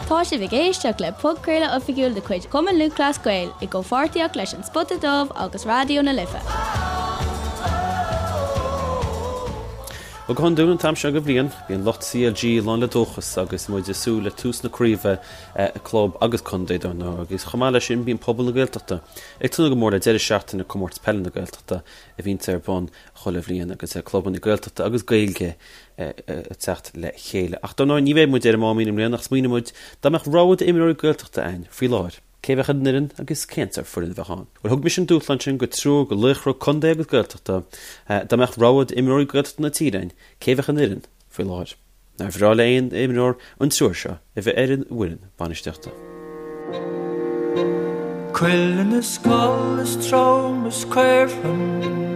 Tá sibh ag éisteacht le podchraoladh oifigiúil de chuid Chumann Lúthchleas Gael i gcomhpháirtíocht leis An Spota Dubh agus Raidió na Life. Bhuel, go hiondúil an t-am seo de bhliain, bíonn lucht CLG lán le dóchas agus muid ag súil le tús na craoibhe club agus contae dar ndóigh agus chomh maith leis sin bíonn pobal na Gaeltachta ag tnúth go mór le deireadh seachtaine Comórtas Peile na Gaeltachta a bhíonns ar bun chuile bhliain agus clubanna Gaeltachta agus Gaeilge ag teacht le chéile. Ach dar ndóigh ní bheidh muid ar an Máimín i mbliana ach smaoinigh muid dá mbeadh rogha d'imreoirí Gaeltachta againn faoi láthair, cé a bheadh ar an fhoireann agus cén sórt foireann a bheadh ann? Bhuel thug mise an dúshlán sin go triúr de laochra contae agus Gaeltachta, dá mbeadh rogha d'imreoirí Gaeltachta na tíre againn, cé a bheadh ar an fhoireann faoi láthair? Nár bhreá le aon imreoir an triúr seo a bheith ar an bhfoireann bainistíochta? Cuileann is coll is trom is caorthann.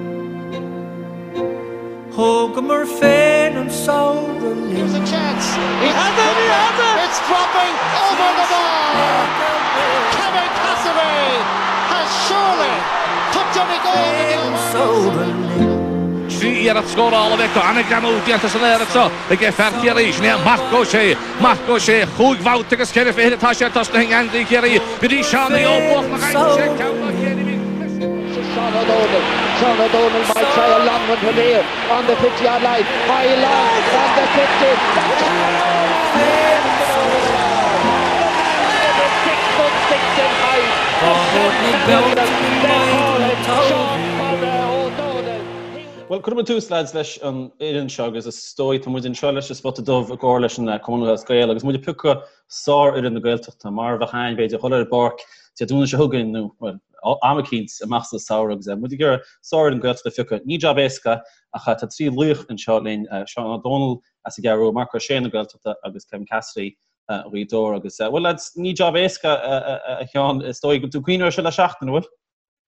Thógamar féin an samhradh linn. Here's a chance. He has it! He has it! It's dropping over the bar! Kevin Cassidy has surely put Donegal Féin an samhradh linn. 3 iarracht scórála a bheith acu. An-ghreamú déanta san aer anseo ag fear Chiarraí. Sin é Marc Ó Sé. Marc Ó Sé, chúig bhabhta agus cheithre fichid atá sé tosnaithe i ngeansaí Chiarraí go dtí Seánie Ó Buachalla ach aimsigh sé ceann dá chéile bhí Seán Ó Dónaill. Seán Ó Dónaill might try a long one from here on the 50 yard line. High long on the 50. Bhuel, cuirfidh muid tús, lads, leis an fhoireann seo agus is dóigh tá muid anseo leis an Spota Dubh i gcomhar leis an Cumann Lúthchleas Gael agus muid ag piocadh sárfhoireann na Gaeltachta mar a bheadh ann, b'fhéidir, dhul ar an bpáirc Dé Domhnaigh seo chugainn nó, bhuel, am eicínt amach sa samhradh agus muid ag iarraidh sárfhoireann Gaeltachta a phiocadh. Ní jab éasca ach tá trí laoch anseo linn, Seán Ó Dónaill as an gCeathrú Rua, Marc Ó Sé na Gaeltachta agus Kevin Cassidy Ghaoth Dobhair agus, bhuel, lads, ní jab éasca a Sheáin, is dóigh go bhfuil tú ag cuimhneamh air seo le seachtain, an bhfuil?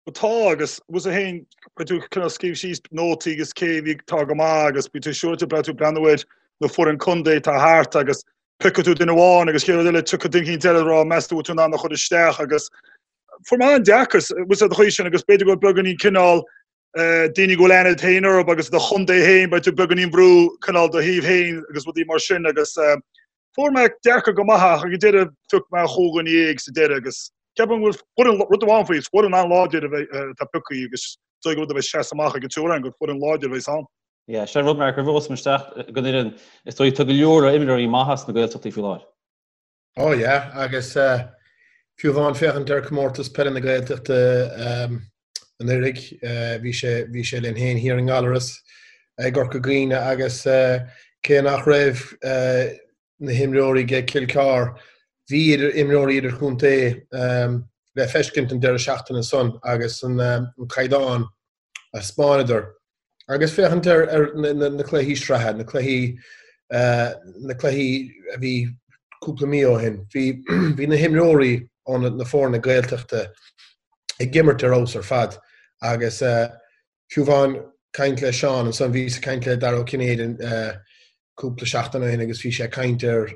Bhuel tá agus bhfuil a fhios agat féin beidh tú cineál scríobh síos nótaí agus cé bhí tá go maith agus beidh tú siúráilte beidh tú breathnú ar na foireann contae atá thart agus piocfaidh tú duine amháin agus chéad rud eile tiocfaidh duine eicínt eile ag rá meas tú bhfuil tú in ann a chur isteach agus fuair mé an-deacair bhfuil a fhios agat an chaoi sin agus b'fhéidir go bhfuil beagáinín cineál daoine go bhfuil aithne agat féin orthu agus do chontae féin beidh tú beagáinín brú cineál do thaobh féin agus rudaí mar sin agus Fuair mé deacair go maith ach ag an deireadh phioc mé 15 sa deireadh agus ceapaim go bhfuil foireann, rud amháin faoi, is foireann an-láidir a bheidh, atá pioctha agus is dóigh gur rud a bheidh seasamh amach ag an triúr againn gur foireann láidir a bheidh ann. Yeah, sin rud Mark, roimh a dhul isteach don fhoireann, is dóigh tá go leor imreoirí maithe sna Gaeltachtaí faoi láthair. Oh yeah, agus fiú amháin féachaint ar Comórtas Peile na Gaeltachta anuraidh, bhí sé, bhí sé linn féin thiar i nGallaras i gCorca Dhuibhne agus cé nach raibh na himreoirí ag Cill Chartha, bhí idir imreoirí idirchontae le feiscint an deireadh seachtaine san agus an caighdeán a 'spáineadar. Agus féachaint ar na cluichí sraithe, na cluichí, na cluichí a bhí cúpla mí ó shin, bhí, bhí na himreoirí ó na foirne Gaeltachta ag imirt ar fheabhas ar fad agus fiú amháin caint le Seán ansan, bhíos ag caint le Dara Ó Cinnéide cúpla seachtain ó shin agus bhí sé ag caint ar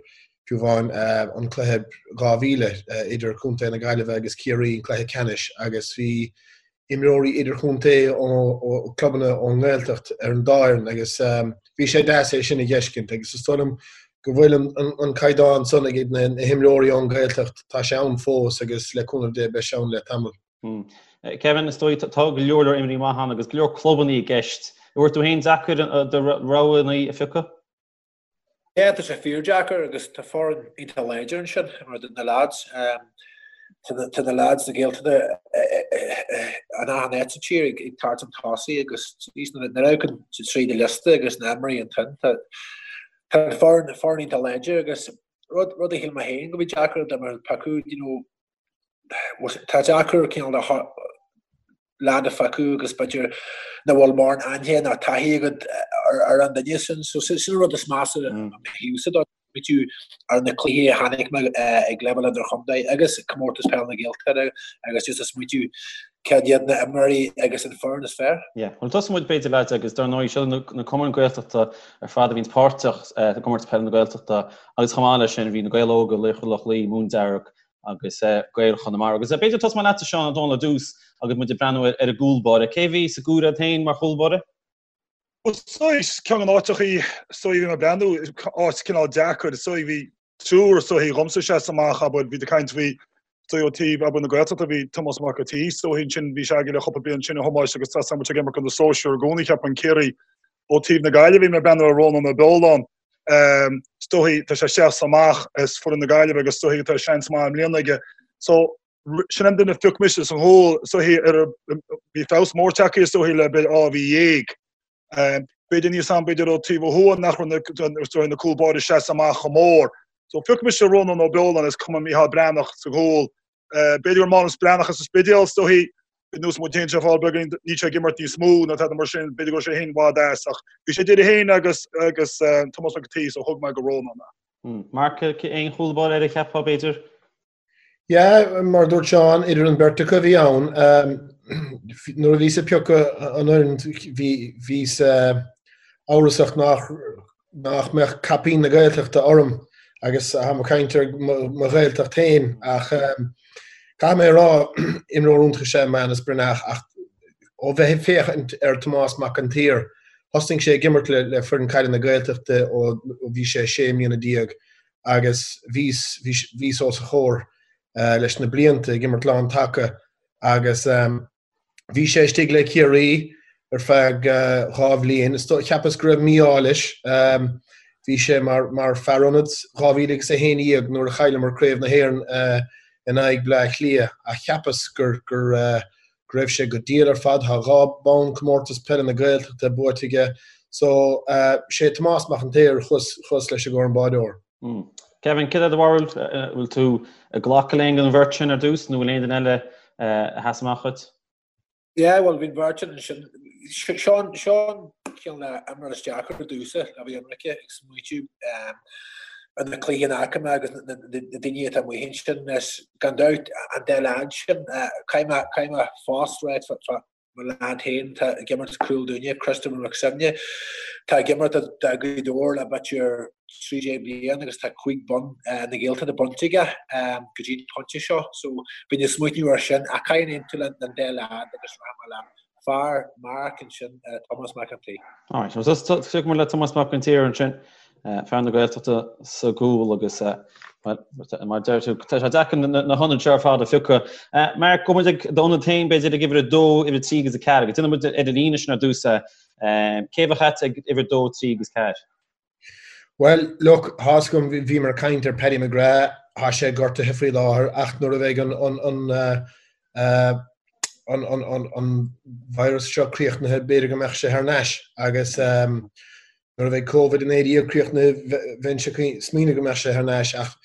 fiú amháin an cluiche 2000 idir Contae na Gaillimhe agus Ciarraí, an cluiche ceannais agus bhí imreoirí idirchontae ó chlubanna ón nGaeltacht ar an dá fhoireann agus bhí sé deas é sin a dh'fheiscint agus is dóigh liom go bhfuil an caighdeán san ag na himreoirí ón nGaeltacht, tá sé ann fós agus le cúnamh Dé beidh sé ann le tamall. Kevin, is dóigh tá go leor leor imreoirí maithe ann agus go leor clubanna i gceist. An bhfuair tú féin deacair do roghanna a phiocadh? Yeah, tá sé fíordeacair agus tá foireann iontach láidir ansin mar na lads. Tá na lads na Gaeltachta in achan áit sa tír ag tabhairt an tosaigh agus nuair a amharcann tú tríd an liosta agus na imreoirí ansin tá an foireann foireann iontach láidir agus rud rud a shíl mé féin go bhí deacair dá mbeadh piocadh you know Tá deacair cineál de lad a phiocadh agus b'fhéidir nach bhfuil mórán aithne ná taithí agat ar an duine sin. So sin an rud is measa ó mo thaobhsa dó. Smaoitiú ar na cluichí a chonaic mé ag leibhéal idirchontae agus Comórtas Peile na Gaeltachta agus just ag smaoitiú cad iad na imreoirí agus an foireann is fearr. Yeah. Bhuel tosóidh muid b'fhéidir lads agus dar ndóigh seo na cumainn Gaeltachta ar fad a bhíonns páirteach i gComórtas Peile na Gaeltachta agus chomh maith leis sin bhí na Gaeil Óga, Laochra Loch Lao, Móin Dearg agus Gaeil Chonamara. Agus b'fhéidir tosóidh mé leatsa Seán Ó Dónaill ar dtús agus muid ag breathnú ar an gcúl báire. Cé a bhí sa gcomhaireamh agat féin mar chúl báire? Bhuel, is dóigh ceann de na háiteachaí is dóigh bhí mé ag breathnú, áit cineál deacair, is dóigh bhí. Triúr is dóichí dhomsa a sheas amach, abair, bhí tú ag caint faoi, is dóigh ó taobh, abair, na Gaeltachta, bhí Tomás Mac an tSaoi, is dóichí ansin, bhí sé againn le cúpla bliain ansin, a Thomáis, agus tá muid ag imirt do na sóisir i gcónaí, cheapfainn, Ciarraí. Ó taobh na Gaillimhe, bhí mé ag breathnú ar Rónán Ó Beoláin, is dóichí, tá sé seasta amach as foireann na Gaillimhe agus is dóichí tá seans maith i mbliana aige. So, sin an duine a phioc mise sa chúl, is dóichí, ar, bhí feabhas mór tagtha, is dóichí, le b'fhéidir dhá mhí dhéag. B'fhéidir níos am, b'fhéidir ó taobh ó thuaidh nach raibh na, na cúl báire seasta amach chomh mór. So phioc mise Rónán Ó Beoláin is cuma Micheál Breathnach sa gcúl. B'fhéidir gur Mánas Breathnach as an Spidéal, is dóichí, ar nós muid féin seo fáil beagán, níl sé ag imirt níos mó ná tada mar sin, b'fhéidir go raibh sé féin i bhfad as ach bhí sé idir é féin agus agus Tomás Mac an tSaoi so thug mé go Rónán é. Mark, aon chúl báire eile a cheapfá b'fhéidir? Yeah, mar a dúirt Seán, idir an beirt acu a bhí ann. Nuair a bhíos ag piocadh an fhoireann, bhí bhíos amhrasach nach nach mbeadh caipín na Gaeltachta orm agus táim ag caint ar mo Ghaeltacht féin ach caithfidh mé a rá, imreoir iontach is ea Mánas Breathnach ach ó bheith ag féachaint ar Tomás Mac an tSaoir, thosnaigh sé ag imirt le le foireann caide na Gaeltachta ó bhí sé 16 mbliana agus bhíos, bhíos os a chomhair leis na blianta ag imirt lán taca agus bhí sé istigh le Ciarraí ar feadh dhá bhliain. Cheapas go raibh mí-ádh leis. Bhí sé mar, mar fear ionaid 2011 nuair a chailleamar Craobh na hÉireann in aghaidh Bleá Cliath ach cheapas gur, gur, go raibh sé go diail ar fad. Tá dhá bonn Comórtas Peile na Gaeltachta buaite aige. So, sé Tomás Mac an tSaoir chuas, chuas leis i gcomhair an báireoir. Kevin, céard é do bharúil? Bhfuil tú ag glacadh le aon den bheirt sin ar dtús nó bhfuil aon duine eile a sheas amach dhuit? Yeah, bhuel, bhí an bheirt sin ansin. Seo an, seo an cineál imreoir is deacra domhsa le bheith ionraice ag smaoitiú ar na cluichí a fhaca mé agus na daoine atá amuigh ansin. Is gan dabht an dá leaid sin, caithfidh mé, caithfidh mé fós ráit fá mo leaid féin atá ag imirt Cúil dúinne, Christopher McSemne. Tá ag imirt do Ghaoth Dobhair le b'fhéidir 13 bliain agus tá cúig bonn na Gaeltachta bainte aige go dtí an pointe seo. So bhínn ag smaoineamh air sin ach caithfidh mé aontú leis an dá leaid agus rachaidh mé le fear Mark ansin, Tomás Mac an tSaoi. Alright, so tiocfaidh muid le Tomás Mac an tSaoir ansin, fear na Gaeltachta sa gcúl agus mar deir tú, tá sé deacair na hionaid seo ar fad a phiocadh. Mark, gabhfaidh muid ag d'ionad féin b'fhéidir ag uimhir 2, uimhir 3 agus 4, agus déanfaidh muid ar an líne sin ar dtús. Cé bheadh agat ag uimhir 2, 3 agus 4? Bhuel, look, tá's agam, bhíomar ag caint ar Paddy McGrath, tá sé gortaithe faoi láthair ach nuair a bheidh an an an an an an virus seo críochnaithe b'fhéidir go mbeadh sé thar n-ais agus nuair a bheidh Covid-19 críochnaithe bheinnse ag smaoineamh go mbeadh sé thar n-ais ach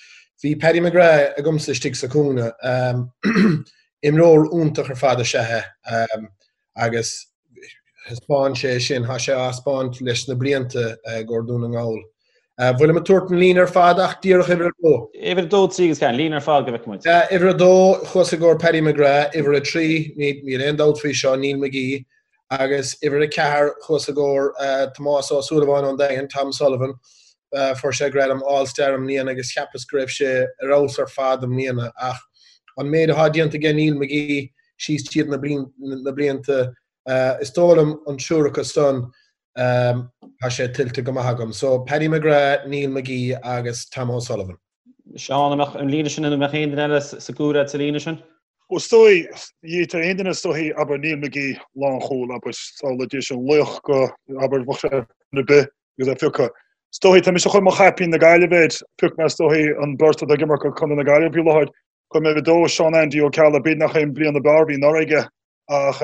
bhí Paddy McGrath agamsa istigh sa chúinne. Imreoir iontach ar fad is ea é agus thaispeáin sé sin, tá sé á thaispeáint leis na blianta i gcomhair Dún na nGall. Bhfuilim ag tabhairt an líne ar fad ach díreach uimhir a dó. Uimhir a dó, trí agus ceathair, an líne ar fad go bhfeicfidh muid. Uimhir a dó, chuas i gcomhair Paddy McGrath, uimhir a trí, níl aon dabht faoi seo, Neil McGee, agus uimhir a ceathair, chuas i gcomhair Tomás Ó Súilleabháin ón Daingean, Tom Sullivan. Fuair sé gradam All Star i mbliana agus cheapas go raibh sé ar fheabhas ar fad i mbliana ach an méid atá déanta aige Neil McGee, síos tríd na blianta. Is dóigh liom an triúr acu san, tá sé tuillte go maith agam. So, Paddy McGrath, Neil McGee agus Tom O'Sullivan. Seán, an mbeadh an líne sin, an mbeadh aon duine eile sa gcúl agat sa líne sin? Ó is dóigh, tá aon duine is dóichí, abair Neil McGee, lánchúl, abair, samhlaigh an laoch go, abair, bheadh sé ar bith agus é phiocadh. Is dóichí, tá mise chun mo chaipín na Gaillimhe air, phioc mé is dóichí an beirt atá ag imirt do Chontae na Gaillimhe faoi láthair, Chuir mé uimhir a dó Seán Andy Ó Ceallaigh, b'fhéidir nach é an bliain ab fhearr a bhí anuraidh aige ach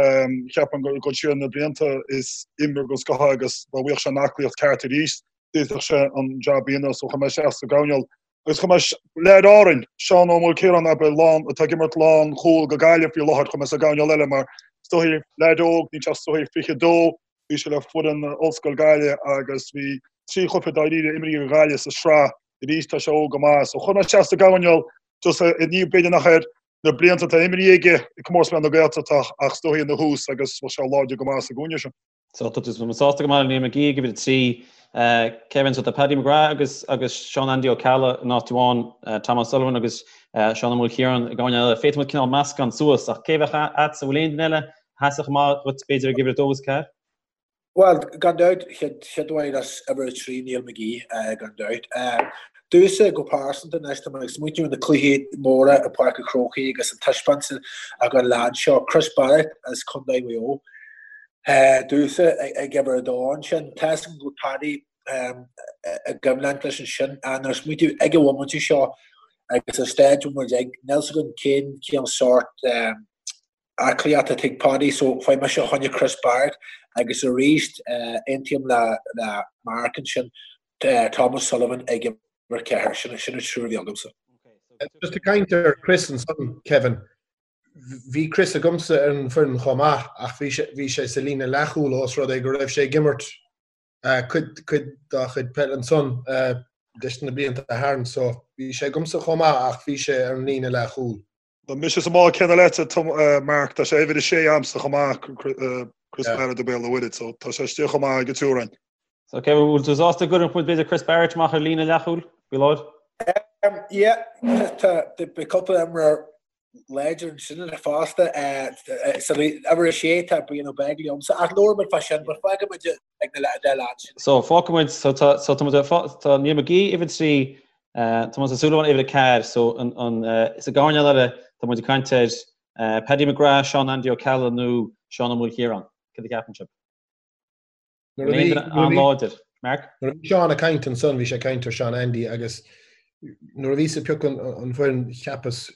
cheapfainn gur dul siar na blianta is imreoir den scoth é agus dá bhfaigheadh sé an aclaíocht ceart arís d'fhéadfadh sé an jab a dhéanamh so chuir mé isteach sa gcoirnéal agus chuir mé leaid Árainn, Seán Ó Maoilchiaráin abair lán atá ag imirt lán chúl go Gaillimh faoi láthair chuir mé sa gcoirnéal eile mar is dóichí leaid óg níl sé ach is dóichí 22 bhí sé le foireann Ollscoil Gaillimh agus bhí trí chluiche dáiríre imrithe ag Gaillimh sa sraith arís tá sé óg go maith. So chuir mé isteach sa gcoirnéal just ní b'fhéidir nach ar na blianta atá imrithe aige i comórtas peile na Gaeltachta ach is dóichí ina thús agus bheadh sé láidir go maith sa gcúinne sin. So tá tú sásta go maith le Neil McGee ag uimhir 3. Kevin, so tá Paddy McGrath agus agus Seán Andy Ó Ceallaigh in áit amháin, Tom O'Sullivan agus Seán Ó Maoilchiaráin i gcoirnéal eile. Féadfaidh muid cineál meascán suas ach cé bheadh agatsa, bhfuil aon duine eile a sheasfadh amach dhuit b'fhéidir ag uimhir 2 agus 4? Bhuel, gan dabht, chéad amháin as uimhir a 3, Neil McGee, gan dabht. Domhsa go pearsanta anois, tá mé ag smaointiú ar na cluichí móra i Páirc an Chrócaigh agus an taispeántas a thug an leaid seo, Chris Barrett as Contae Mhaigh Eo, domhsa ag uimhir a dó ansin. Tá a fhios agam go bhfuil Paddy i gcoimhlint leis ansin ach nuair a smaointiú ag an bhomaite seo agus an staid a bhfuil muid ag, níl a fhios agam cén cén sórt aclaíocht atá ag Paddy so faighidh mise fá choinne Chris Barrett agus arís aontaím le le Mark ansin Thomas Sullivan ag uimhir 4 sin sin an triúr a bhí agamsa. Just ag caint ar Chris ansan Kevin, bhí Chris agamsa ar an bhfoireann chomh maith ach bhí sé bhí sé sa líne leathchúil ós rud é go raibh sé ag imirt cuid cuid dá chuid peile ansan leis na blianta tharainn so bhí sé agamsa chomh maith ach bhí sé ar an líne leathchúil. Tá mise sa mbád céanna leat, Mark, tá sé uimhir a sé a'msa chomh maith, Chris Barrett ó Béal an Mhuirthead, so tá sé istigh chomh maith ag an triúr againn. So Kevin, bhfuil tú sásta go gcuirfeadh muid b'fhéidir Chris Barrett amach ar líne leathchúil faoi láthair? Yeah, tá beidh cúpla imreoir láidir ansin fosta. Sa uimhir a sé tá Brian Ó Beaglaoich agamsa, ach labhróidh muid fá sin, but fágfaidh muid ag na dá leaid sin. So fágfaidh muid, so tá, so tá muid, tá Niall McGee uimhir 3, Tomás Ó Súilleabháin uimhir 4, so an, an, sa gcoirnéal eile tá muid ag caint ar Paddy McGrath, Seán Andy Ó Ceallaigh nó Seán Ó Maoilchiaráin. Cad a cheapann sibh? Nuair a bhí, an-láidir. Mark? Nuair a bhí Seán ag caint ansan, bhí sé ag caint ar Seán Andy agus nuair a bhíos ag piocadh an fhoireann cheapas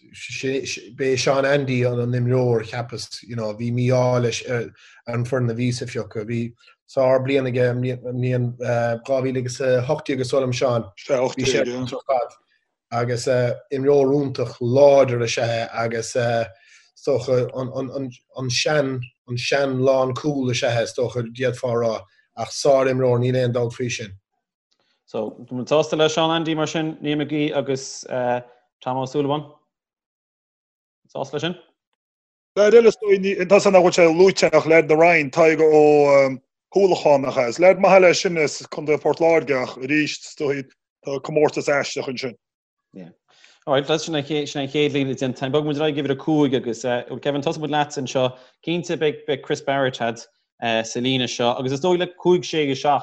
b'é Seán Andy an an imreoir cheapas you know bhí mí-ádh leis ar an foireann a bhíos a phiocadh. Bhí sár bliain aige i mbliain 2018 is dóigh liom Seán. Bhí sé ar fad agus imreoir iontach láidir is ea é agus is dócha an sean an sean lán cúl is ea é is dócha d'fhéadfá a rá ach sár imreoir níl aon dabht faoi sin. So, tá muid sásta le Seán Andy mar sin, Niall McGee agus Tom Ó Súilleabháin? Sásta leis sin? Leaid eile is dóigh, tá a fhios agam nach bhfuil sé luaite ach leaid na Roinne, Tadhg Ó hUallacháin nach ea? Is leaid maith eile é sin as Contae Phort Láirge ach arís is dóigh tá comórtas aisteach ansin. Yeah. Alright, that's sin an chéad líne déanta. Bogfaidh muid ar aghaidh uimhir 5 agus uh, Kevin tosóidh muid leat anseo. Cinnte beidh beidh Chris Barrett agat uh, sa líne seo agus is dóigh le 5 6 7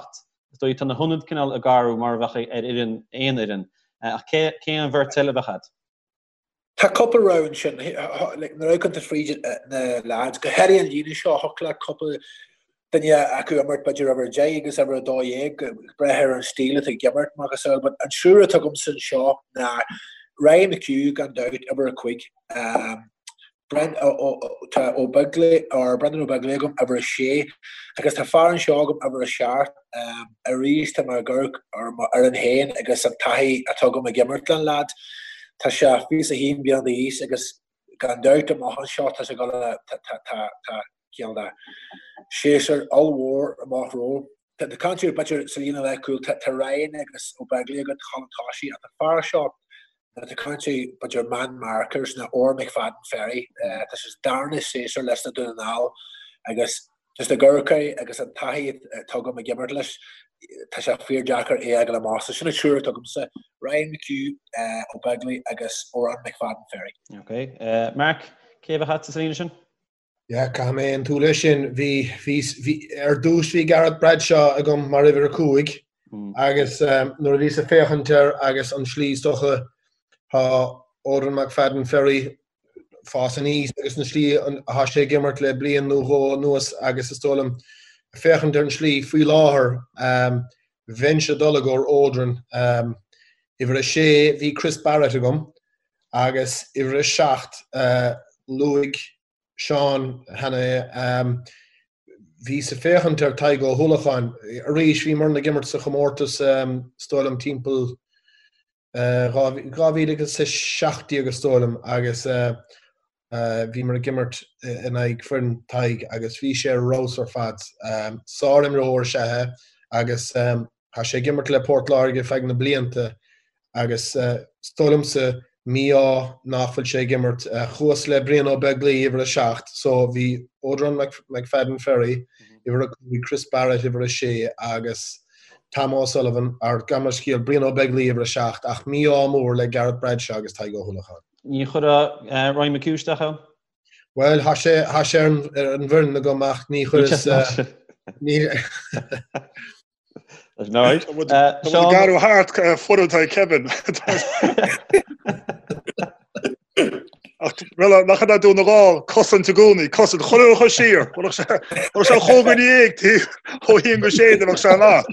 is dóigh tá na hionaid cineál ag athrú mar a bheadh ar fhoireann aon fhoireann. Uh, ach cé cé an bheirt eile a bheadh agat? Tá cúpla rogha ansin. Like, nuair a amharcann tú fríd na lads, go háirithe an líne seo, thiocfadh le cúpla duine acu imirt b'fhéidir uimhir 10 agus uimhir 12, ag brath ar an stíl atá ag imirt, macasamhail. But an triúr atá agamsa anseo ná Ryan McHugh gan dabht, uimhir 5. Um, Brent, tá Ó Beaglaoich, or Brendan Ó Beaglaoich agam, uimhir 6, agus tá fear anseo agam, uimhir 7. Arís tá mé ag amharc ar m'fhoireann féin agus an taithí atá agam ag imirt le an leaid. Tá sé 21 bliana d'aois agus gan dabht amach anseo tá sé ag dul a, tá, tá, tá, tá cineál de séasúr ollmhór amach rompu. Tá cainteoir b'fhéidir sa líne leathchúil, tá Ryan agus Ó Beaglaoich agat, chun tosaigh, ach an fear seo, nuair atá caint ar b'fhéidir man markers ná Odhrán McFadden-Ferry, tá sé sa darna séasúr leis na Dún na nGall agus just ag amharc air agus an taithí atá agam ag imirt leis, tá sé fíor-deacair é a fhágáil amach. So sin an triúr atá agamsa, Ryan McHugh, Ó Beaglaoich agus Odhrán McFadden-Ferry. Ok. Mark, cé a bheadh agat sa líne sin? Yeah, caithfidh mé aontú leis sin. Bhí, bhí, bhí, ar dtús bhí Gareth Bradshaw agam mar uimhir a 5 agus nuair a bhíos ag féachaint air agus an slí is dócha tá Odhrán McFadden Ferry fás aníos agus an slí atá sé ag imirt le bliain nó dhó anuas agus is dóigh liom féachaint ar an slí faoi láthair bheinnse ag dul i gcomhair Odhrán. Uimhir a sé bhí Chris Barrett agam agus uimhir a 7, luaigh Seán cheana é, bhíos ag féachaint ar Tadhg Ó hUallacháin. Arís, bhíomar ag imirt sa chomórtas, is dóigh liom, timpeall 2017 is dóigh liom, agus bhíomar ag imirt in aghaidh foireann Tadhg agus bhí sé ar fheabhas ar fad. Sár-imreoir is ea é agus Tá sé ag imirt le Port Láirge feadh na blianta agus is dóigh liomsa mí-ádh nach bhfuil sé ag imirt. Chuas le Brian Ó Beaglaoich, uimhir a 7, so bhí Odhrán McFadden Ferry, uimhir a 5, Chris Barrett, uimhir a 6 agus Tom O'Sullivan, or gabh mo leithscéal, Brian Ó Beaglaoich, uimhir a 7, ach mí-ádh mór le Gareth Bradshaw agus Tadhg Ó hUallacháin. Ní chuirfeá Ryan McHugh isteach ann? Bhuel, tá sé tá sé ar an bhfoireann agam ach ní chuireas ní. Alright. Tá muid ag athrú thart foireann atá ag Kevin. Ach bhuel, nach ionadh Dún na nGall, cosaint i gcónaí, cosaint, chuile rud a chur siar. Bheadh sé bheadh sé chomh go ndéag taobh ó haon go sé de bheadh sé an lá.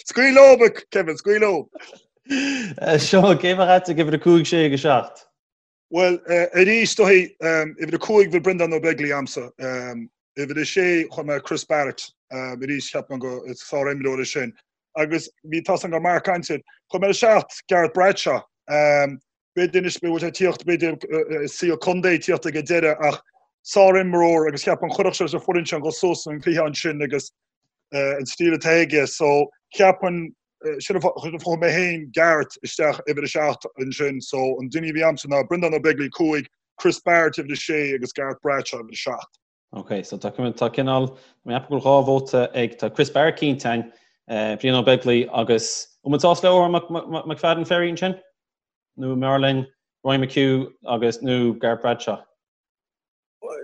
Scaoil leo, Kevin, scaoil leo. Seán, cé bheadh agat ag uimhir 5, 6 agus 7? Bhuel, arís, is dóigh, uimhir 5 bhí Breandán Ó Beaglaoich a'msa. Uimhir 6 chuir mé Chris Barrett, arís cheap mé go is sár-imreoir é sin. Agus bhí tá a fhios agam go raibh Mark ansin. Chuir mé ar 7 Gareth Bradshaw. B'fhéidir anois bhfuil sé ag tíocht, b'fhéidir saol contae ag tíocht ag an deireadh ach sár-imreoir agus cheapfainn chuirfeadh sé leis an foireann sin dhul suas an cluiche ansin agus an stíl atá aige. So cheapfainn sin an fáth a chuir mé féin Gareth isteach uimhir a 7 ansin. So an duine a bhí a'msa ná Breandán Ó Beaglaoich 5, Chris Barrett uimhir a 6 agus Gareth Bradshaw uimhir a 7. Ok, so tá tá cineál, mé ag ceapadh go bhfuil 2 vóta ag, tá Chris Barrett cinnte ann, Brian Ó Beaglaoich agus, an bhfuil muid sásta le Odhrán McFadden Ferry ansin? Nó an mb'fhearr linn Ryan McHugh agus, nó Gareth Bradshaw?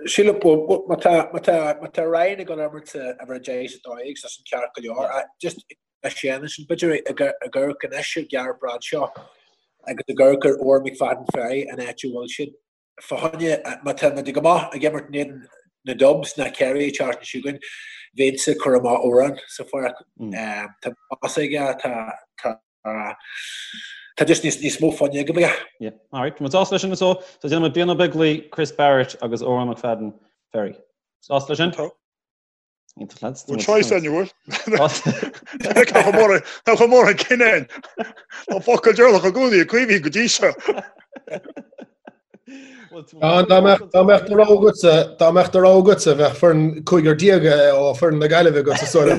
Sílim, má tá, má tá, má tá Ryan ag dul a imirt sa uimhir 10 is 12, tá sin ceart go leor. Just a Séan ansin, b'fhéidir ag amharc anois ar Gareth Bradshaw agus ag amharc ar Odhrán McFadden Ferry an áit a bhfuil siad. Fá choinne, má tá muid go maith ag imirt in éadan na Dubs ná Kerry an tseachtain seo chugainn, bheinnse ag cur amach Odhrán sa pháirc. Tá pas aige, tá, tá, tá just níos, níos mó foighne aige. Yeah, alright, tá muid sásta leis sin so, so déanfaidh muid Brian Ó Beaglaoich, Chris Barrett agus Odhrán McFadden Ferry. Sásta leis sin? Tá. Iontach lads. Bhfuil choice ann, bhfuil? Tá chomh mór an cinneadh. Tá focal deireanach i gcónaí ag Caoimhín go dtí seo. Dá mbeadh do rogha agatsa, dá mbeadh do rogha agatsa, bheadh foireann 15 ó foireann na Gaillimhe agatsa sula.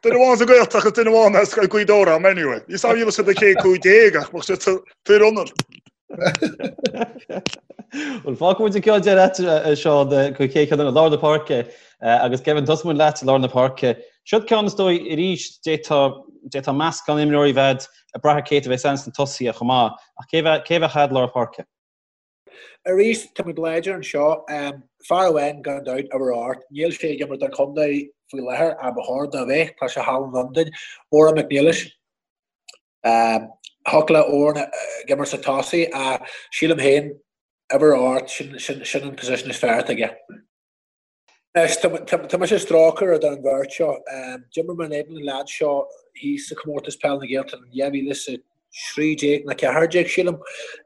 Duine amháin sa Ghaeltacht agus duine amháin as Gaoth Dobhair am anyway. Ní sábh sa chéad 15 ach bheadh sé fíor ionad. Bhuel, fágfaidh muid an ceann deireadh leat, a Seán, go chéad cheann i lár na páirce agus Kevin, tosóidh muid leat i lár na páirce. Seo ceann is dóigh arís, d'fhéadfá meascán imreoirí a bheith ag brath ar cé a bheas ann sna tosaithe chomh maith, ach cé bheadh agat i lár páirce? Arís, tá muid láidir anseo. Fear amháin gan dabht, uimhir 8, níl sé ag imirt don chontae faoi láthair, ach ba chóir dó a bheith, tá sé thall in Londain, Odhrán Mac Niallais. Thiocfadh le Odhrán ag imirt sa tosaí ach sílim féin uimhir 8 sin sin an position is fearr atá aige. Anois tá mise ag strócadh idir an bheirt seo. D'imir mé in éadan an leaid seo thíos sa Comórtas Peil na Gaeltachta in 2013 nó 14 sílim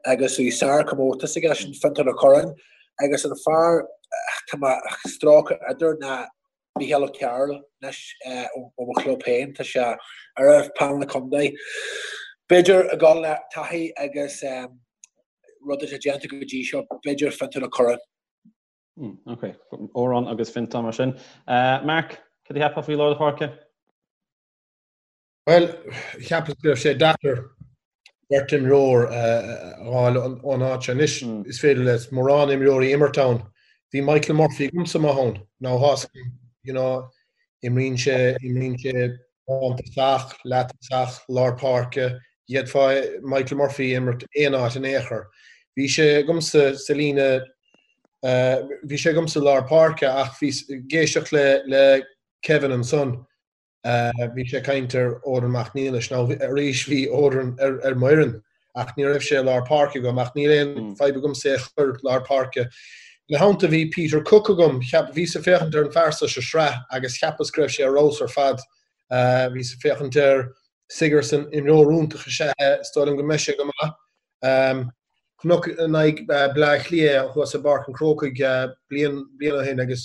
agus bhí sár-chomórtas aige sin Fiontar Ó Curráin agus an fear tá mé ag strócadh idir ná Mícheál Ó Cearúil anois ó mo chlub féin, tá sé ar phainéal na contae. B'fhéidir ag dul le taithí agus rud atá déanta go dtí seo, b'fhéidir Fiontar Ó Curráin. Ok, Odhrán agus Fiontar mar sin. Mark, cad a cheapfá faoi lár na páirce? Bhuel, cheapas go raibh sé deacair beirt imreoir a fháil ón áit seo. Anois, is féidir le mórán imreoirí imirt ann. Bhí Michael Murphy agamsa maith ann. Now, thás, you know, imríonn sé, imríonn sé lántosach, leath-tosach, lár páirce. D'fhéadfá Michael Murphy a imirt aon áit in aon chor. Bhí sé agamsa sa líne, bhí sé agamsa lár páirce ach bhí, ag éisteacht le, le Kevin ansan, Bhí sé ag caint ar Odhrán Mac Niallais. Now arís bhí Odhrán ar mo fhoireann ach ní raibh sé i lár páirce agam ach níl aon fadhb agamsa é a chur lár páirce. Ina theannta bhí Peter Cooke agam. Cheap, bhíos ag féachaint ar an fear seo sa sraith agus cheapas go raibh sé ar fheabhas ar fad. Bhíos ag féachaint ar Sigerson, imreoir iontach is ea é, is dóigh liom go mbeidh sé go maith. Chonac in aghaidh Bleá Cliath thuas i bPáirc an Chrócaigh bliain ó shin agus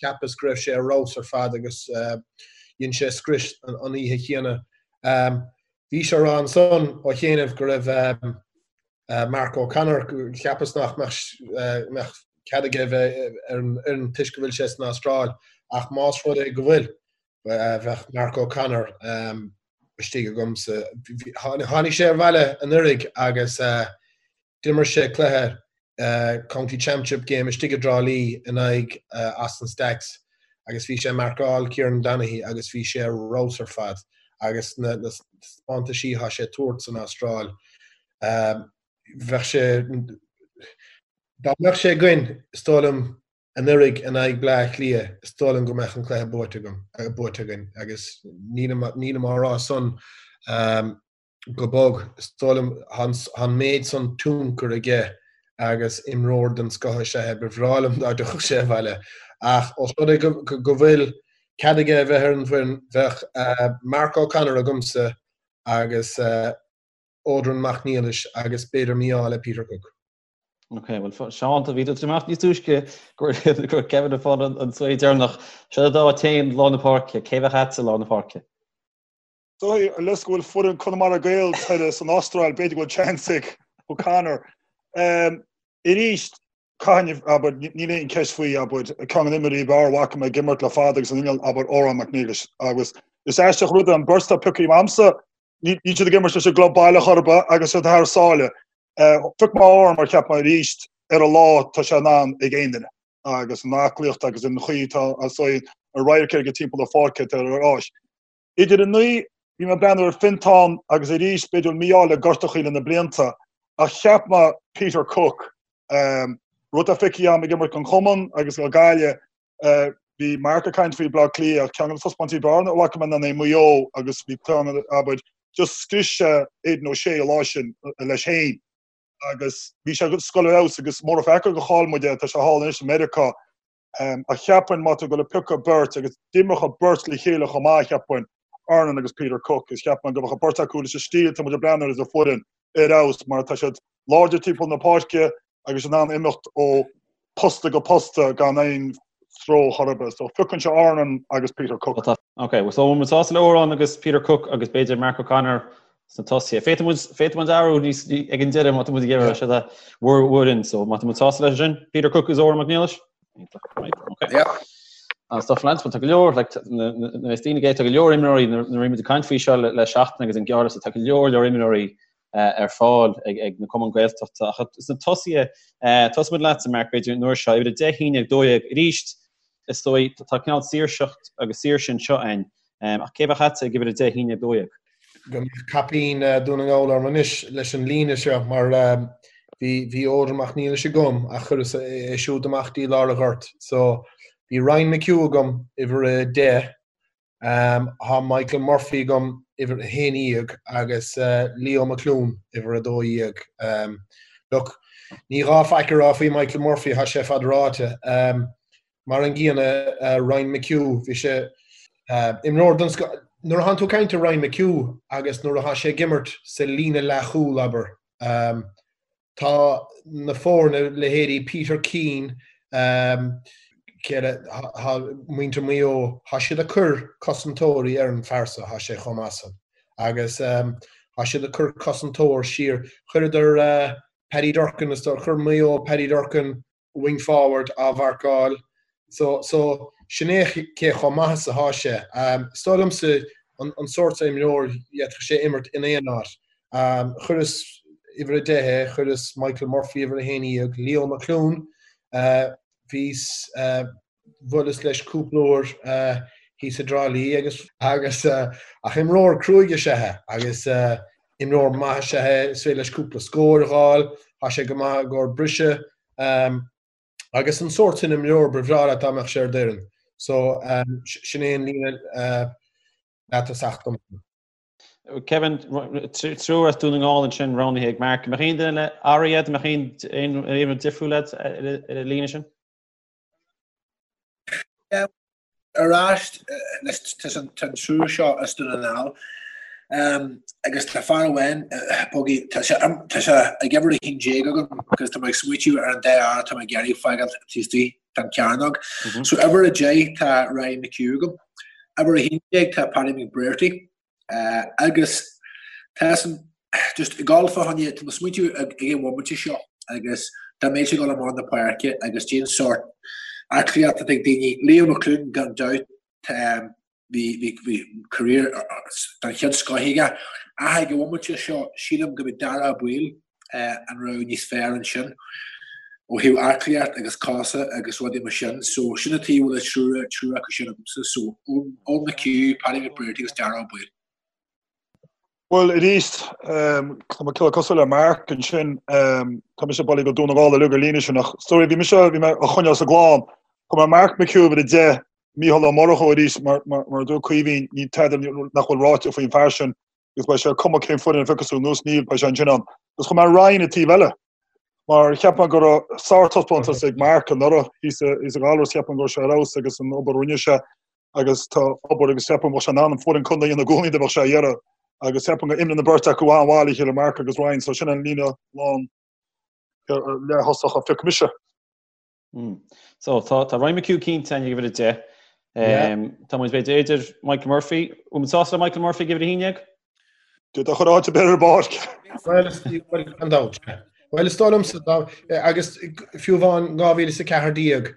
cheapas go raibh sé ar fheabhas ar fad agus dhein sé scrios an oíche chéanna. Bhís á rá ansan ó chianaibh go raibh Mark O'Connor, cheapas nach mbeadh cead aige a bheith ar an fhoireann toisc go bhfuil sé san Astráil ach más rud é go bhfuil, bheadh Mark O'Connor istigh agamsa. Tháinig sé abhaile anuraidh agus d'imir sé cluiche County Championship game istigh i dTrá Lí in aghaidh Austin Stacks agus bhí sé ag marcáil Kieran Donaghy agus bhí sé ar fheabhas ar fad agus na taispeántaisí atá sé ag tabhairt san Astráil bheadh sé dá mbeadh sé againn is dóigh liom. Anuraidh in aghaidh Bleá Cliath, is dóigh liom go mbeadh an cluiche buaite agam, buaite againn agus nílim, nílim á rá san go bog. Is dóigh liom, tá an méid san tionchar aige agus imreoir den scoth is ea é. Ba bhreá liom dá dtiocfadh sé abhaile. Ach os rud é go bhfuil cead aige a bheith ar an bhfoireann, bheadh Mark O'Connor agamsa agus Odhrán Mac Niallais agus b'fhéidir mí-ádh le Peter Cooke. Ok, bhuel Seán, bhí tú amach níos túisce go raibh Kevin ag fáil an svae deireanach. Seo dá téann lár na páirce, cé bheadh agat i lár na páirce? Dóigh leis go bhfuil foireann Conamara Gaels thoir san Astráil, b'fhéidir go bhfuil chance ag O'Connor. Arís, caithfidh, abair, níl aon cheist faoi, abair, ceann de na himreoirí ab fhearr a bhfaca mé ag imirt le fada agus an inneall, abair, Odhrán Mac Niallais. Agus is aisteach rud é an bheirt atá pioctha agamsa, níl siad ag imirt leis an gclub baile chor ar bith agus siad thar sáile. Phioc mé Odhrán mar cheap mé arís ar a lá tá sé in ann ag aon duine agus an aclaíocht agus an chaoi atá an radharc aige timpeall na pháirce atá ar áis. Idir an naoi, bhí mé ag breathnú ar Fintán agus arís b'fhéidir mí-ádh le gortachaí le na blianta ach cheap mé Peter Cooke, rud atá feicthe agam ag imirt don chumann agus do Ghaillimh, bhí Mark ag caint faoi Bleá Cliath ach ceann de na taispeántaisí ab fhearr a bhfaca mé ná in Maigh Eo agus bhí ceann abair just scrios sé Aidan O'Shea an lá sin leis féin agus bhí sé ag goil ar fheabhas agus mura feicthe go chaill muid é tá sé thall anois i Meiriceá. Ach cheapfainn má tá tú ag goil a piocadh beirt agus d'imreodh an bheirt le chéile chomh maith cheapfainn, Odhrán agus Peter Cooke, is cheapfainn go mbeadh an bheirt acu leis an stíl atá muid ag breathnú air sa bhfoireann ar fheabhas mar tá siad láidir timpeall na páirce agus in ann imeacht ó posta go posta gan aon stró chor ar bith. So phiocfainnse Odhrán agus Peter Cooke. Ok, so muid sásta le Odhrán agus Peter Cooke agus b'fhéidir Mark O'Connor sna tosaithe. Féadfaidh muid, féadfaidh muid athrú níos, ag an deireadh má tá muid ag iarraidh sé bhur bhfoireann. So má tá muid sásta leis sin, Peter Cooke agus Odhrán Mac Niallais? Right, okay. Yeah. An stuff lads, tá go leor, like, na daoine tá go leor imreoirí nuair a bhí muid ag caint faoi seo le, le seachtain agus an gearr tá go leor leor imreoirí ar fáil ag, ag na cumainn Gaeltachta. Ach sna tosaithe, tosóidh muid leatsa, Mark, b'fhéidir an uair seo, uimhir 10, 11, 12, arís, is dóigh, tá cineál saoirseacht agus saoirse anseo againn. Ach cé bheadh agatsa ag uimhir 10, 11, 12? Go mbeadh caipín Dún na nGall orm anois leis an líne seo mar bhí bhí Odhrán Mac Niallais agam ach chuireas é siúd amach dtí lár an ghoirt. So bhí Ryan McHugh agam uimhir 10, tá Michael Murphy agam uimhir 11 agus Leo McLoone uimhir 12. Look, ní gá faic a rá faoi Michael Murphy, tá sé fad ráite. Mar an gcéanna, Ryan McHugh, bhí sé imreoir den scoth. Nuair atánn tú ag caint ar Ryan McHugh agus nuair atá sé ag imirt sa líne leathchúl, abair, tá na foirne, leithéidí Peter Keane, cé eile, tá muintir Mhaigh Eo, tá siad ag cur cosantóirí ar an fear so, tá sé chomh maith san. Agus tá siad ag cur cosantóir siar. Chuireadar Paddy Durcan, is dóigh, chuir Maigh Eo Paddy Durcan wing forward á mharcáil. So, so, sin é cé chomh maith is atá sé. Is dóigh liomsa an sórt seo imreoir, d'fhéadfadh sé imirt in aon áit. Chuireas uimhir a deich é, chuireas Michael Murphy uimhir a haon dhéag, Leo McLoone, bhíos, bhuaileas leis cúpla uair thíos i dTrá Lí agus agus ach imreoir cruaidh is ea é agus imreoir maith is ea é, is féidir leis cúpla scór a dh'fháil, tá sé go maith i gcomhair briseadh agus an sórt sin imreoir ba bhreá leat dá mbeadh sé ar d'fhoireann. So sin é an líne leatosach dom. Kevin, triúr as Dún na nGall ansin roghnaithe ag Mark. An mbeadh aon duine le athrú agat, an mbeadh aon aon difriúil agat ar an líne sin? Ar ais leis an triúr seo as Dún na nGall agus tá fear amháin Boggy, tá sé ag uimhir 11 agam agus tá mé ag smaoitiú ar an dá fhear atá mé ag iarraidh fágáil taobh istigh den chearnóg. So uimhir 10 tá Ryan McHugh agam, uimhir 11 tá Paddy McBrearty Agus tá san just ag dul fá choinne, tá mé ag smaointiú ag an bhomaite seo agus dá mbeadh sé ag dul amach na páirce agus cén sórt aclaíocht atá ag daoine, Leo McLoone gan dabht, bhí bhí bhí career den chéad scoth aige ach ag an bhomaite seo sílim go mbeidh Darragh Ó Baoill an rogha níos fearr ansin ó thaobh aclaíocht agus cosa agus rudaí mar sin. So sin an tuige a bhfuil an triúr triúr acu sin agamsa. So Eoin McHugh, Paddy McBrearty agus Darragh Ó Baoill. Bhuel, arís, tá mé cosúil le Mark ansin, tá mise bailithe go Dún na nGall uilig ar líne sin ach sorry, bhí mise, bhí mé á choinneáil sa gclann. Chuir mé Mark McHugh uimhir 10, Mícheál Ó Murchú arís, mar a dúirt Caoimhín, níl tada nach bhfuil ráite faoin bhfear sin agus beidh sé cuma cén foireann a phiocfas tú anuas, níl, beidh sé ansin ann. Agus chuir mé Ryan an taobh eile, mar cheap mé go raibh sártaispeántas ag Mark anuraidh thíos i nGallaras, cheap mé go raibh sé ar fheabhas agus an obair a rinne sé agus tá obair agus cheap mé go mbeadh sé in ann an foireann contae a dhéanamh i gcónaí dá mbeadh sé á iarraidh agus cheap mé go imreann an bheirt acu an-mhaith le chéile, Mark agus Ryan, so sin an líne lán leath-thosach a phioc mise. So tá tá Ryan McHugh cinnte ag uimhir 10. Tá muid b'fhéidir idir Michael Murphy, bhfuil muid sásta le Michael Murphy ag uimhir 11? D'fhéadfá a chur áit ar bith ar an bpáirc. Bhuel, gan dabht. Bhuel, is dóigh liomsa, agus fiú amháin 2014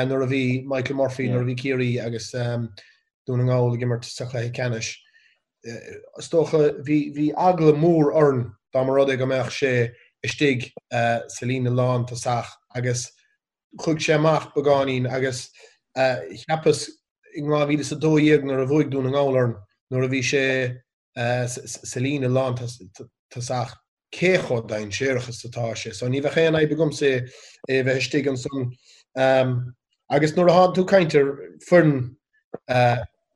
nuair a bhí Michael Murphy, nuair a bhí Ciarraí agus Dún na nGall ag imirt sa chluiche ceannais, is dócha bhí bhí eagla mór orainn dá mba rud é go mbeadh sé istigh sa líne lántosach agus chuaigh sé amach beagáinín agus cheapas in 2012 nuair a bhuaigh Dún na nGall orainn nuair a bhí sé sa líne lántosach cé chomh dainséarach is atá sé. So ní bheadh aon fhadhb agamsa é a bheith istigh ansan. Agus nuair atá tú ag caint ar foireann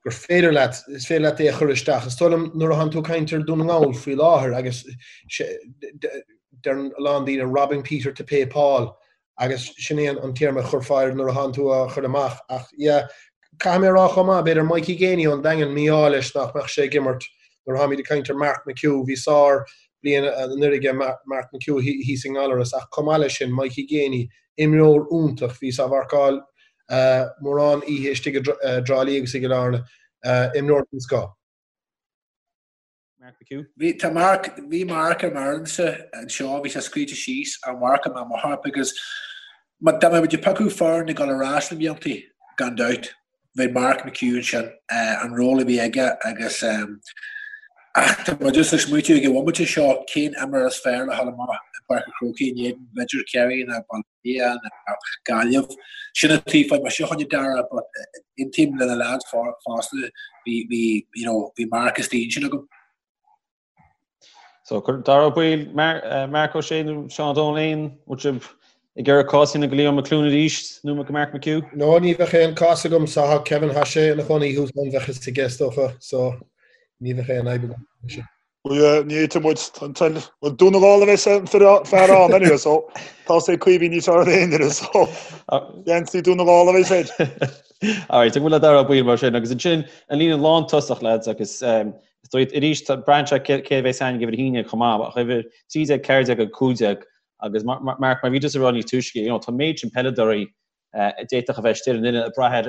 gur féidir leat, is féidir leat é a chur isteach, is dóigh liom nuair atá tú ag caint ar Dún na nGall faoi láthair agus deireann a lán daoine robbing Peter to pay Paul Agus sin é an téarma a chuirfeá air nuair atánn tú á chur amach. Ach yeah, caithfidh mé a rá chomh maith, b'fhéidir Mikey Geaney ón Daingean, mí-ádh leis nach mbeadh sé ag imirt nuair atáimid ag caint ar Mark McHugh. Bhí sár bliain anuraidh ag Mark McHugh thíos i nGallaras ach chomh maith leis sin, Mikey Geaney, imreoir iontach, bhíos á mharcáil mórán oíche istigh i dTrá Lí agus i gCill Airne, imreoir den scoth. Mark McHugh. Bhí, tá Mark, bhí Mark ar m'fhoireannsa anseo, bhí sé scríte síos ar Mark i mo chorp agus má dá mbeadh muid ag piocadh foireann ag dul ar ais na bliantaí, gan dabht, bheadh Mark McHugh ansin, an ról a bhí aige agus ach tá mé just ag smaoitiú ag an bhomaite seo cén imreoir is fearr le dhul amach i bPáirc an Chrócaigh in éadan b'fhéidir Ciarraí nó Baile Átha Cliath nó Gaillimh. Sin an taobh fá mise choinne Dara but aontaím le na lads fosta bhí bhí you know bhí Mark istigh ansin agam. So cuir Dara Ó Baoill, Marc Ó Sé nó Seán Ó Domhnaill aon bhfuil sibh ag iarraidh cás a dhéanamh do Leo McLoone arís nó go Mark McHugh? No ní bheadh aon cás agamsa tá Kevin tá sé ina chónaí thuas ann bheadh fhios aige is dócha so ní bheadh aon fhadhb agam leis sin. Well ní fhéadfaidh muid an toil Well Dún na nGall a bheas an fear ann anyway so tá sé Caoimhín níos fearr ná aon duine so geansaí Dún na nGall a bheas air. Alright, ag bhfuil le Dara Ó Baoill mar sin agus ansin an líne lántosach lads agus is dóigh arís braitheann sé cé a bheas ann ag uimhir a haon déag chomh maith ach uimhir 13, 14 agus 15 agus Mark mar bhí tusa ag rá níos túisce you know tá méid sin peileadóirí a d'fhéadfadh a bheith istigh ar an fhoireann ag brath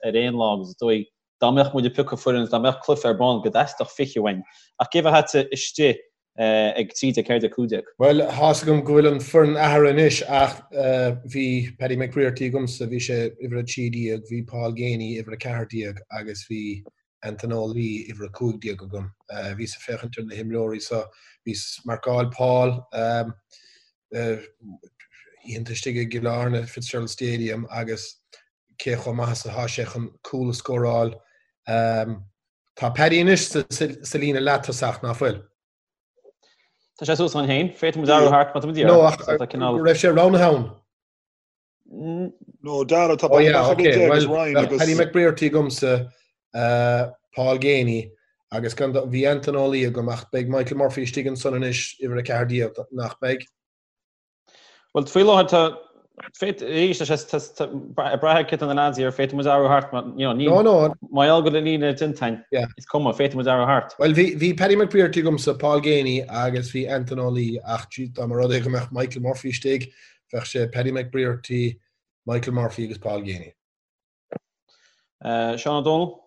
ar aon lá agus is dóigh dá mbeadh muid ag piocadh foireann, dá mbeadh cluiche ar bun, go dteastódh 20 uainn. Ach cé bheadh agatsa istigh ag 13, 14, 15? Bhuel, tá's agam go bhfuil an foireann athraithe anois ach bhí Paddy McBrearty agamsa, bhí sé uimhir 13, bhí Paul Geaney uimhir 14 agus bhí Anton Ó Laoi uimhir 15 agam. Bhíos ag féachaint ar na himreoirí so, bhíos ag marcáil Paul oícheanta istigh i gCill Airne, Fitzgerald Stadium agus cé chomh maith is atá sé chun cúl a scóráil. Tá Paddy anois sa líne leath-tosach, ná fuil? Tá sé suas ann féin. Féadfaidh muid athrú thart má tá muid iarraidh. No, ach go raibh sé roghnaithe ann. No, Dara, tá Oh yeah, okay. Well, bheadh Paddy McBrearty agamsa, Paul Geaney, agus gan bhí Anton Ó Laoi agam ach beidh Michael Murphy istigh ansan anois, uimhir 14, nach mbeidh? Bhuel, faoi láthair tá, féad, arís, tá sé, tá, ag brath ar cé tá na lads ar, féadfaidh muid athrú thart, mar, you know, ní, No, no. mar gheall go bhfuil an líne déanta againn, Yeah. is cuma, féadfaidh muid athrú thart. Bhuel, bhí, bhí Paddy McBrearty agamsa, Paul Geaney agus bhí Anton Ó Laoi ach gee, dá mba rud é go mbeadh Michael Murphy istigh, bheadh sé Paddy McBrearty, Michael Murphy agus Paul Geaney. Uh, Seán Ó Domhnaill?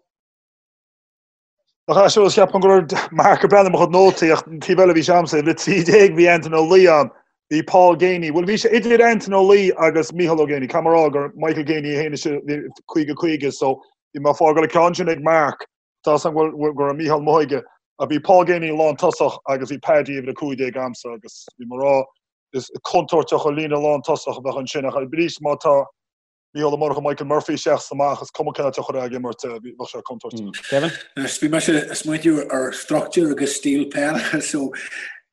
Ach é cheapaim go raibh Mark ag breathnú ar mo chuid nótaí ach an taobh eile bhí sé agamsa le 13 bhí Anton Ó Laoi ann, bhí Paul Geaney, bhuel bhí sé idir Anton Ó Laoi agus Mícheál Ó Geaney, caithfidh mé a rá gur Michael Geaney é féin is 50 50 so bhí mé ag fágáil an ceann sin ag Mark, tá san go bhfuil go raibh Mícheál amuigh aige ach bhí Paul Geaney lán tosach agus bhí Paddy uimhir 15 agamsa agus bhí mé ag rá is contúirteach an líne lán tosach a bheadh ansin ach arís má tá Mícheál Ó Murchú Michael Murphy isteach is amach, is cuma cén áit a chuirfeá ag imirt é, bheadh sé contúirteach. Kevin? Bhí mise ag smaointiú ar struchtúr agus stíl peile so.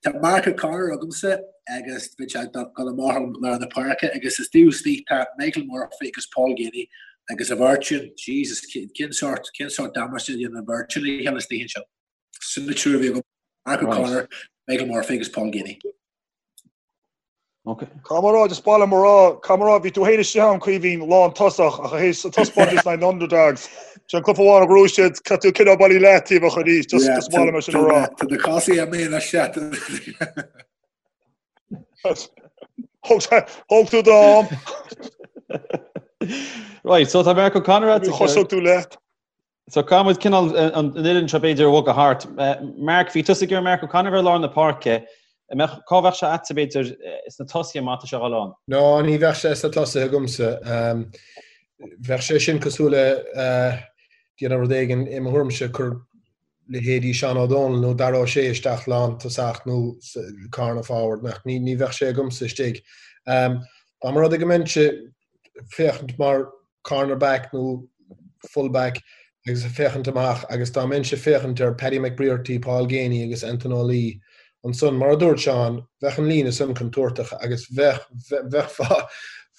Tá Mark O'Connor agamsa agus beidh sé ag dul amach ar lár na páirce agus is taobh istigh tá Michael Murphy agus Paul Geaney agus a bheirt sin, Jesus, cén sórt, cén sórt damáiste a dhéanann an bheirt sin le chéile istigh ansin. Sin na triúr a bhí agam, Mark O'Connor, Michael Murphy agus Paul Geaney. Okay. Caithfidh mé a rá, just ba mhaith liom a rá, caithfidh mé a rá, bhí tú féin istigh ann Caoimhín lán tosach ach théis an taispeántas in aghaidh na Underdogs. Sin an cluiche amháin a ghnóthaigh siad, caithfidh tú cineál bailí leataobhach arís, just just ba mhaith liom é sin a rá. Tá na cásaí a mé leis se. Thóg tú d'am. Right, so tá Mark O'Connor at. Thosódh tú leat. So caithfidh muid cineál an fhoireann seo b'fhéidir a bhogadh thart. Mark, bhí tusa ag iarraidh Mark O'Connor a bheith i lár na páirce. An mbeadh, cá bheadh sé a'dsa b'fhéidir sna tosaithe má tá sé a dhul ann? No, ní bheadh sé sna tosaithe agamsa. Bheadh sé sin cosúil le déanamh rud éigin i mo thuairimse, cur leithéidí Seán Ó Dónaill nó Dara Ó Sé isteach lántosach nó corner forward, nach, ní bheadh sé agamsa istigh. Dá mba rud é go mbeinnse féachaint mar corner back nó full back agus ag féachaint amach agus dá mbeinnse féachaint ar Paddy McBrearty, Paul Geaney agus Anton Ó Laoi ansan, mar a dúirt Seán, bheadh an líne san contúirteach agus bheadh, bheadh,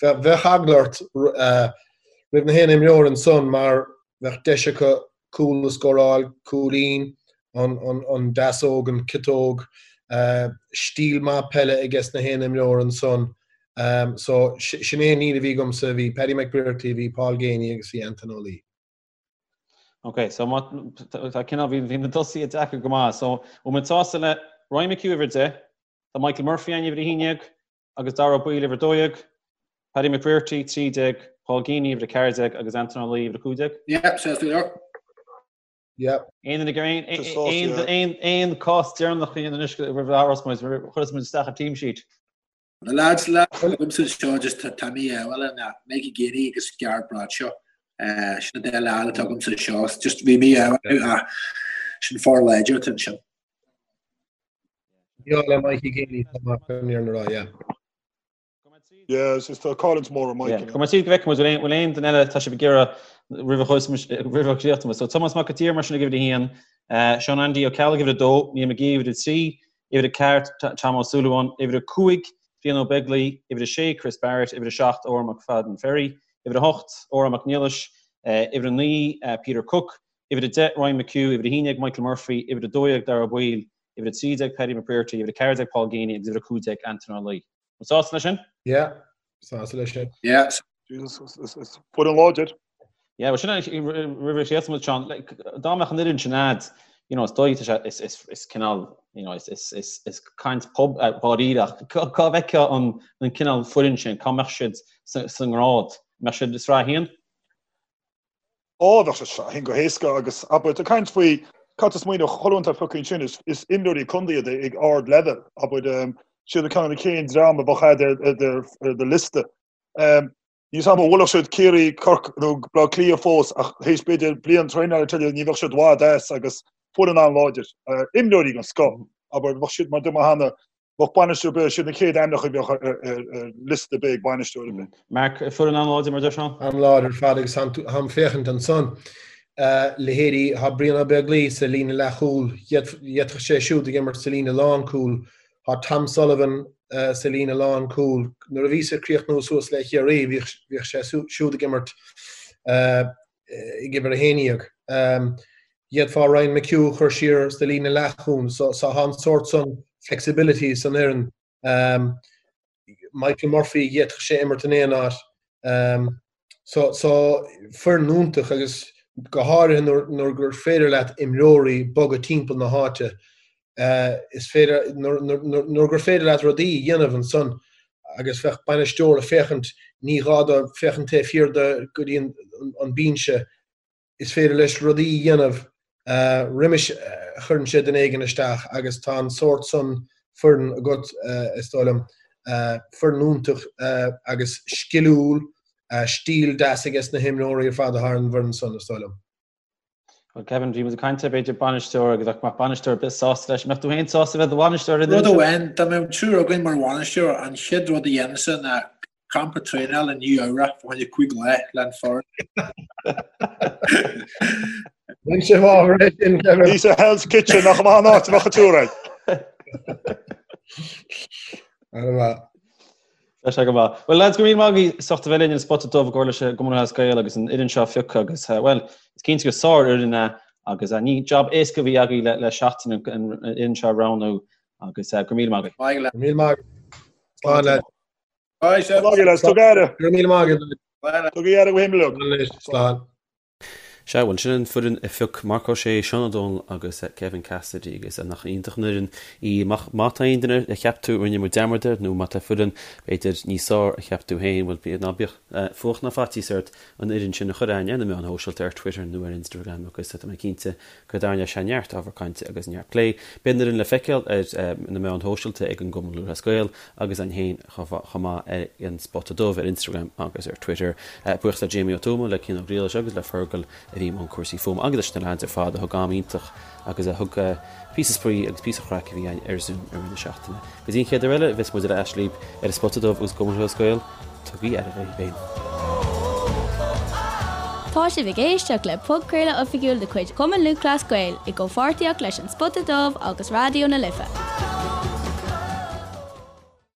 bheadh eagla ort roimh na haon imreoir ansan mar bheadh deis acu cúl a scóráil, cúilín, an deasóg, an ciotóg, stíl maith peile aige sna haon imreoir ansan. So, sin é an líne a bhí agamsa, bhí Paddy McBrearty, bhí Paul Geaney agus bhí Anton Ó Laoi. Ok, so má tá cineál, bhí na tosaithe deacair go maith. So, bhfuil muid sásta le Ryan McHugh uimhir 10, tá Michael Murphy ann uimhir 11, agus Dara Ó Baoill uimhir 12, Paddy McBrearty 13, Paul Geaney uimhir 14 agus Anton Ó Laoi uimhir 15. Yep, sásta go leor. Yep. Aon aon aon cás deireanach a dhéanamh anois roimh a thabharfas muid, chuirfeas muid isteach an team sheet. Na lads lads agamsa anseo just tá mé bhuel na Mikey Geaney agus Gareth Bradshaw sin na dá leaid atá agamsa anseo just bhí mé ach sin foireann láidir atá ansin. Bhí le Mikey Geaney tá mar an rá, yeah. Yeah, is tá cáilint mór ar Mikey. Go mbeidh go bhfeicfidh muid bhfuil aon duine eile tá sibh ag iarraidh roimh a roimh a chríochnú. So Tomás Mac an tSaoir mar sin ag uimhir a haon, Seán Andy Ó Ceallaigh uimhir a dó, Niall McGee uimhir a trí, uimhir a ceathair Tom Ó Súilleabháin, uimhir a cúig Fionn Ó Beaglaoi, uimhir a sé Chris Barrett, uimhir a seacht Odhrán McFadden Ferry, uimhir a hocht Odhrán Mac Niallais, uimhir a naoi Peter Cooke, uimhir a deich Ryan McHugh, uimhir a haon déag Michael Murphy, uimhir a 12 Dara Ó Baoill, uimhir 13 Paddy McBrearty, uimhir 14 Paul Geaney agus uimhir 15 Anton Ó Laoi. An sásta leis sin? Yeah, sásta leis sin. Yeah. Jesus, is foireann láidir. Yeah, well sin roimh a chríochnóidh muid Seán, dá mbeadh an fhoireann sin a'd, you know, is dóigh tá sé is is is cineál, you know, is is is is caint pub dháiríre ach cá bhfeicfeá an an cineál foireann sin, cá mbeadh siad sa sa ngrád? Mbeadh siad i sraith a haon? Ó, bheadh sé sraith a haon go héasca agus abair, ag caint faoi cad tá smaoineamh chuile dhuine atá pioctha ansin, is is imreoirí contae iad ag ard leibhéal, abair, siad ceann de na chéad dream a bheadh a'd ar ar ar do liosta. Níl 'fhios a'm an bhfuilfeadh siad Ciarraí, Corcaigh nó Baile Átha Cliath fós ach théis b'fhéidir bliain traenála tuilleadh ní bheadh siad i bhfad as agus foireann an-láidir. Imreoirí den scoth, abair, bheadh siad mar a dúirt mé cheana, bheadh bainisteoir ar bith, siad na chéad ainmneacha a bheadh ar liosta ar bith ag bainisteoir ar bith. Mark, foireann an-láidir mar a deir Seán? An-láidir ar fad agus táim féachaint ansan, leithéidí, tá Brian Ó Beaglaoi sa líne leathchúil, d'fhéadfadh sé siúd ag imirt sa líne lánchúil, tá Tom Sullivan sa líne lánchúil. Nuair a bhíos ag críochnú suas le Chiarraí bhíodh sé siúd ag imirt ag uimhir 11. D'fhéadfá Ryan McHugh a chur siar sa líne leathchúil. So tá an sórt san flexibility san fhoireann. Michael Murphy, d'fhéadfadh sé imirt in aon áit. So so foireann iontach agus go háirithe nuair gur féidir leat imreoirí bogadh timpeall na háite. Is féidir nuair gur féidir leat rudaí a dhéanamh ansan agus bheadh bainisteoir ag féachaint, ní gá dó féachaint taobh thiar de go dtí an binse, is féidir leis rudaí a dhéanamh roimis a chuireann sé duine éigin isteach agus tá an sórt san foireann agat, is dóigh liom. Foireann iontach agus sciliúil, stíl deas aige sna himreoirí ar fad atá ar an bhfoireann san, is dóigh liom. Bhuel Kevin, bhí muid ag caint ar b'fhéidir bainisteoir agus ach mbeadh bainisteoir ar bith sásta leis. Mbeadh tú féin sásta bheith i do bhainisteoir ar an Rud amháin, dá mbeadh triúr againn mar bhainisteoir, an chéad rud a dhéanfainnse ná campa traenála i Nua Eabhrac fá choinne 5 lá le an foireann. Bhain sé bhfabhar é sin, Kevin. Bhí sa Hell's Kitchen nach maith an áit a bheadh an triúr ann. An-mhaith. Tá sé go maith. Bhuel lads, go raibh míle maith agaibh as ucht a bheith linn ar an Spota Dubh i gcomhar leis an gCumann Lúthchleas Gael agus an fhoireann seo a phiocadh agus bhuel, is cinnte gur sár-fhoireann é agus ní jab éasca a bhí agaibh le seachtain an fhoireann seo a roghnú agus go raibh míle maith agaibh. Maith Go raibh míle maith agaibh. Slán lads. Bye, Slán lads. Tug aire. Go raibh míle maith agaibh. Tugaigí aire daoibh féin uilig. Slán. Sea, bhuel, sin an foireann a phioc Marc Ó Sé, Seán Ó Dónaill agus Kevin Cassidy agus nach iontach an fhoireann í. Má tá aon duine a cheap tú a rinne muid dearmad air nó má tá foireann, b'fhéidir, níos fearr a cheap tú féin, bhuel, ná bíodh fuacht ná faitíos ort an fhoireann sin a chur a'ainn ar na meáin shóisialta, ar Twitter nó ar Instagram agus tá mé cinnte go dtarraingeoidh sé neart ábhar cainte agus neart plé. Beidh an fhoireann le feiceáil ar na meáin shóisialta ag an gCumann Lúthchleas Gael agus a'ainn féin. chomh maith ar an Spota Dubh ar Instagram agus ar Twitter. Buíochas le Jamie Ó Tuama, le Cian Ó Griallais agus le Fergal a bhí i mbun cúrsaí fuaime agus leis na leaids ar fad a thug am iontach agus a thug píosa spraoi agus píosa craic a bhí againn ar Zoom i rith na seachtaine. Go dtí an chéad uair eile a bheas muid ar ais libh ar an Spota Dubh agus an Cumann Lúthchleas Gael, tugaigí aire daoibh féin. Tá sibh ag éisteacht le podchraoladh oifigiúil de chuid Chumann Lúthchleas Gael i gcomhpháirtíocht leis An Spota Dubh agus Raidió na Life.